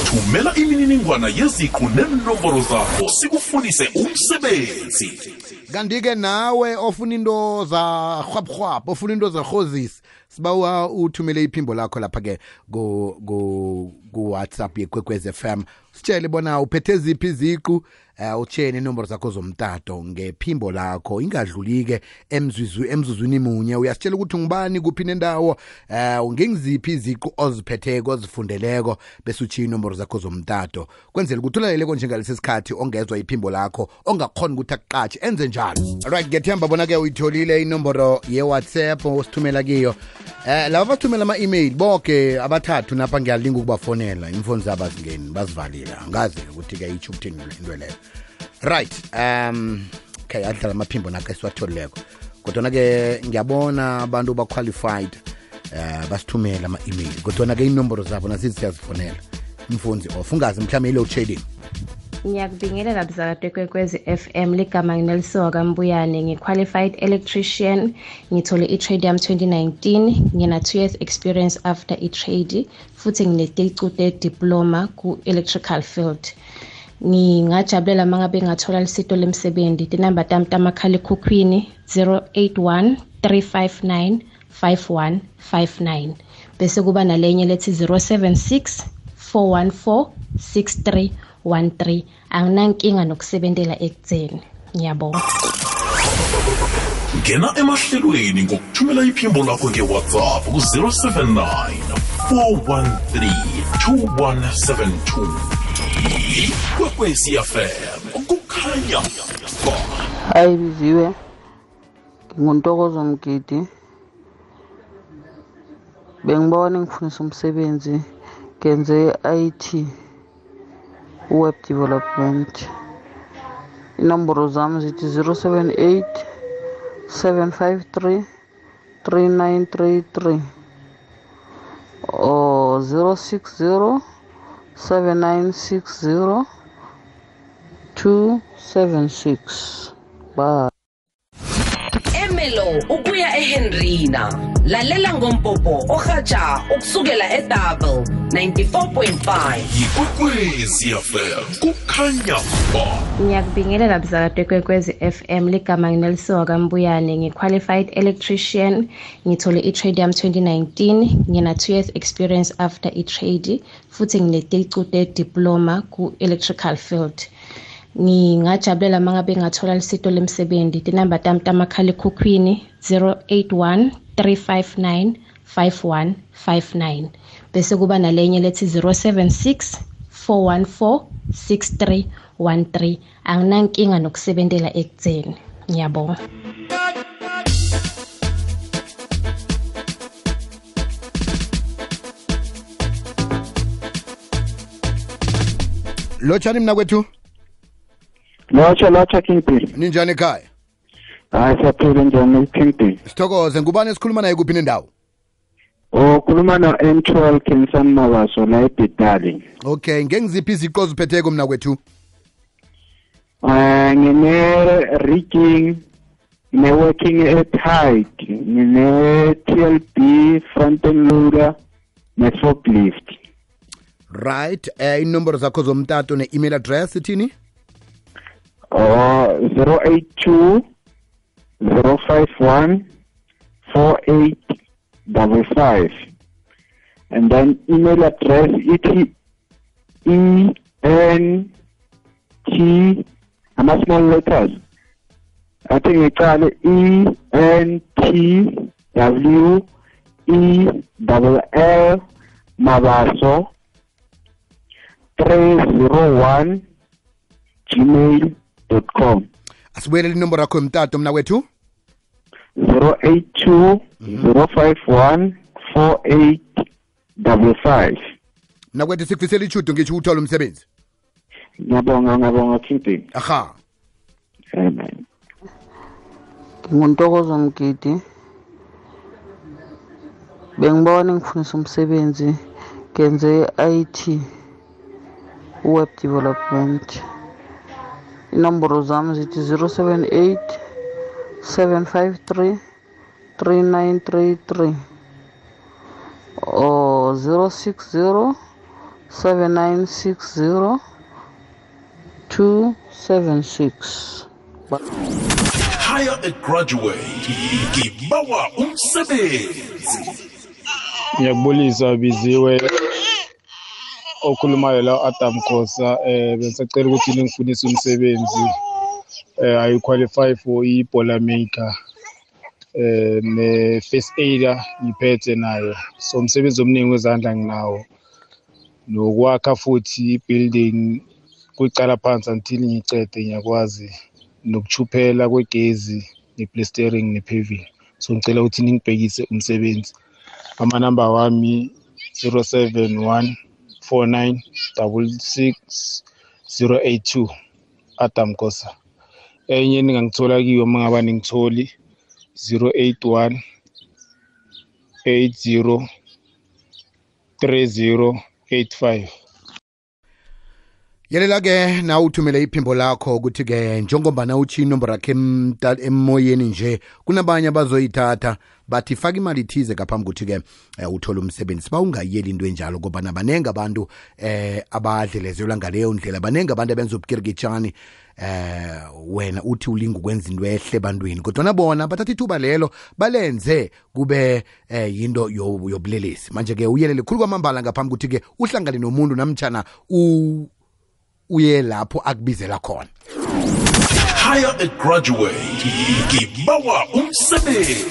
Thumela imininingwana yeziqu nenombolo zakho sikufundise umsebenzi. Kanti-ke nawe ofuna into za rhwabhwabh, ofuna into za rhozisi, sibawa uthumele iphimbo lakho lapha-ke ku-WhatsApp yeKwekwez FM. Sitshele bona uphethe ziphi iziqu, utshene inombolo zakho zomtato ngephimbo lakho, ingadluli-ke emzuzwini munye. Uyasitshela ukuthi ngubani kuphi nendawo, ngengiziphi iziqu oziphetheko ozifundeleko, bese utshiya inombolo zakho zomtato kwenzela ukuthi ulaleleko njengalesi sikhathi ongezwa iphimbo lakho, ongakhona ukuthi akuqatshe enze njalo. Alright, ngethemba bona-ke uyitholile inombolo ye-WhatsApp osithumela kiyo. Laba bathumela ama-email boke abathathu napha ngiyalinga ukubafonela, imfoni zabo azingeni bazivalile, angazi ukuthi-ke itsho ukuthini into leyo. Right, okay, adlala amaphimbo nakho esiwatholileko, kodwana-ke ngiyabona abantu ba-qualified basithumela ama-email, kodwana-ke inomboro zabo nasithi siyazifonela, imfoni off, ungazi mhlawumbe i-load shedding. Ngiyakubingelela mzakade Kwekwezi FM, ligama nginelisoka Kambuyane, ngi-qualified electrician, ngithole i-trade yami 2019, ngina 2 years experience after i-trade, futhi ngineticude diploma ku-electrical field. Ngingajabulela mangabe ngathola lisito lemsebenzi. Tinamba tami tamakhalekhukhwini 081 359 5159, bese kuba nalenye lethi 076 414 6313. Anginankinga nokusebentela ekutheni. Ngiyabonga. Ngena emahlelweni ngokuthumela iphimbo lakho nge-WhatsApp ku-079 413 2172. Ikwekwezi FM kukhanya ba. Hayi biziwe, nginguntokozo Mgidi, bengibona ngifundisa umsebenzi, ngenze IT web development. Inombolo zami zithi 078 753 3933 or 060 7960 276. Bye. Emelo ukuya eHenrina, lalela ngompopo ohatsha ukusukela eDouble 94.5. Ikwekwezi FM kukhanya ba. Ngiyakubingelela mzakade Kwekwezi FM, ligama nginelisoka Kambuyane, ngi-qualified electrician, ngithole i-trade yami 2019, ngina 2 years experience after i-trade, futhi ngineticude diploma ku-electrical field. Ngingajabulela mangabe ngathola lisito lemsebenzi. Tinamba tami tamakhalekhukhwini 081 359 5159, bese kuba nalenye lethi 076 414 6313. Anginankinga nokusebentela ekutheni. Ngiyabonga. Lotshani mna kwethu? Lotsha Kingpin. Ninjani ekhaya? Hayi siyaphila njani Kingpin? Sithokoze, ngubani esikhuluma naye kuphi nendawo? Khuluma no-M12 Kinsan Mabaso la eBitali. Okay, ngengiziphi iziqu oziphetheko mna kwethu? Ngine-rigging, ngine-working at height, ngine-TLB, front-end loader, ne-forklift. Right, inombolo zakho zomtato ne-email address ithini? 082 051 4855, and then email address ENT, ama small letters, I think it's ENTWELL Mabaso 301 gmail.com. Asibuyelele inombolo yakho yomtato mna kwethu? 082 051 4855. Mna kwethu sikufisela ichudo ngitsho uthola umsebenzi. Ngiyabonga Kingpin. Aha. Amen. Nginguntokozo Mgidi, bengibona ngifundisa umsebenzi, ngenze IT web development. Inombolo zami zithi 078 753 3933 or 060 7960 276. Hire a graduate ngibawa umsebenzi. Ngiyakubulisa biziwe okhulumayo la Adam Khosa besacela ukuthi ningifunise umsebenzi I qualify for iBola maker ne first aider ngiphethe nayo so umsebenzi omningi wezandla nginawo nokwakha futhi building kuqala phansi until ngicede ngiyakwazi nokuchuphela kwegezi neplastering nepaving so ngicela ukuthi ningibhekise umsebenzi amanamba wami 0714966082 Adam Khosa enye ningangithola kiyo mangaba ningitholi 081 80 3085. Yelela ke na uthumele iphimbo lakho ukuthi ke njengoba uthi inombolo yakhe emoyeni nje kunabanye abazoyithatha bathi faka imali ithize ngaphambi ukuthi ke uthola umsebenzi ba ungayeli into enjalo ngoba nabanenge abantu abadlelezelwa ngaleyo ndlela banenge abantu abenza ubukirikitshani wena uthi ulinga ukwenza into ehle ebantwini kodwa nabona bathatha ithuba lelo balenze kube yinto yobulelesi manje ke uyelele khulu kwamambala ngaphambi ukuthi ke uhlangane nomuntu namtjana uye lapho akubizela khona. Hire a graduate ngibawa umsebenzi.